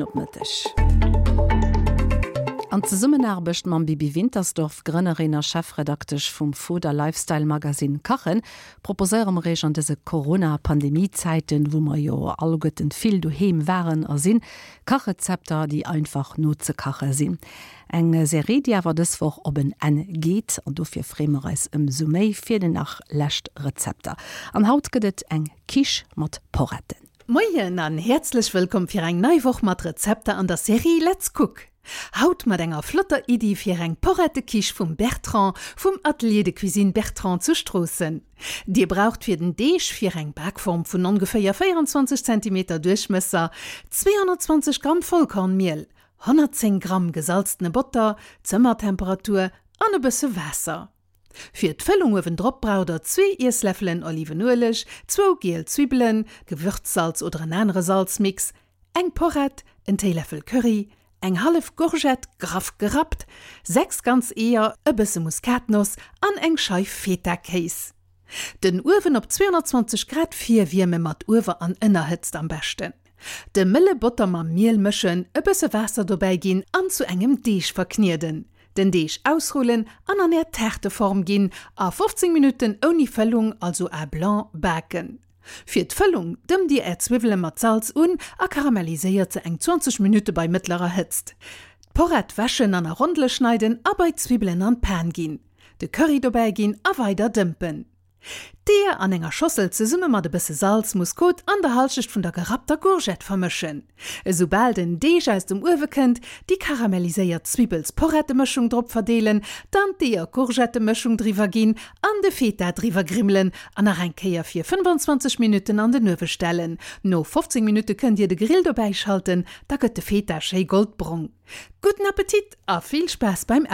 Op Mëtteg. An Zesummenaarbecht mam Bibi Wintersdorf, Grënnerin a Chefredaktesch vum Food a Lifestyle-Magasinn Kachen, proposéiere mer Iech an dëse Corona-Pandemie-Zäiten, wou mer jo alleguerten vill doheem waren a sinn, Kachrezepter, déi einfach nozekache sinn. Eng Serie, déi awer dës Woch op en Enn geet an dofir freeë mer eis ëmsou méi fir déi nach lescht Rezepter. An haut gëtt et eng Quiche mat Poretten. Moien an häerzlech wëllkomm fir eng nei Woch mat Rezepter an der Serie Let's Cook! Haut mat enger flotter Iddi fir eng Porrette-Quiche vum Bertrand vum Atelier de Cuisine Bertrand zu Stroossen. Dir braucht fir den Deeg fir eng Bakform vun ongeféier 24 Zentimeter Duerchmësser 220 Gramm Vollkornmiel, 110 Gramm gesalztene Botter, Zëmmertemperatur, an e bësse Waasser. Fir d'Fëllung uewendrop braucht der zwee Iessläffelen Olivenueleg, zwou giel Zwibbelen, Gewürzsalz oder en anere Salzmix, eng Porrett, en Téiläffel Curry, eng hallef Gourgette, graff gerappt, 6 ganz Eeër, e bësse Muskatnoss an eng Scheif Feta-Kéis. Den Uewen op 220 Grad virwierme mat Uewer an Ënnerhëtzt am beschten. De mëlle Botter mam Miel mëschen, e bësse Waasser dobäi ginn an zu engem Deeg verknieden. Den Deeg ausrullen an an är Taarteform ginn a 15 Minutten ouni Fëllung, also à blanc, baken. Fir d'Fëllung dëmmt dir är Zwiwwele mat Salz un a karamelliséiert se eng 20 Minutte bei mëttlerer Hëtzt. D'Porrett wäschen an a Rondele schneiden a bei d'Zwibbelen an d'Pan ginn. De Curry dobäi ginn a weider dëmpen. D'Eeër an enger Schossel zesumme mat e bësse Salz, Muskot an der Halschecht vun der gerappter Gourgette vermëschen. Esoubal den Deeg aus dem Uewe kënnt, déi karamelliséiert Zwibbels-Porrette-Mëschung drop verdeelen, dann d'Eeër-Gourgette-Mëschung driwwer ginn an de Feta driwwer grimmelen an nach eng Kéier fir 25 Minutten an den Uewe stellen. No 15 Minutte kënnt Dir de Grill dobäi schalten, da gëtt de Feta schéi goldbrong. Gudden Appetit a vill Spaass beim.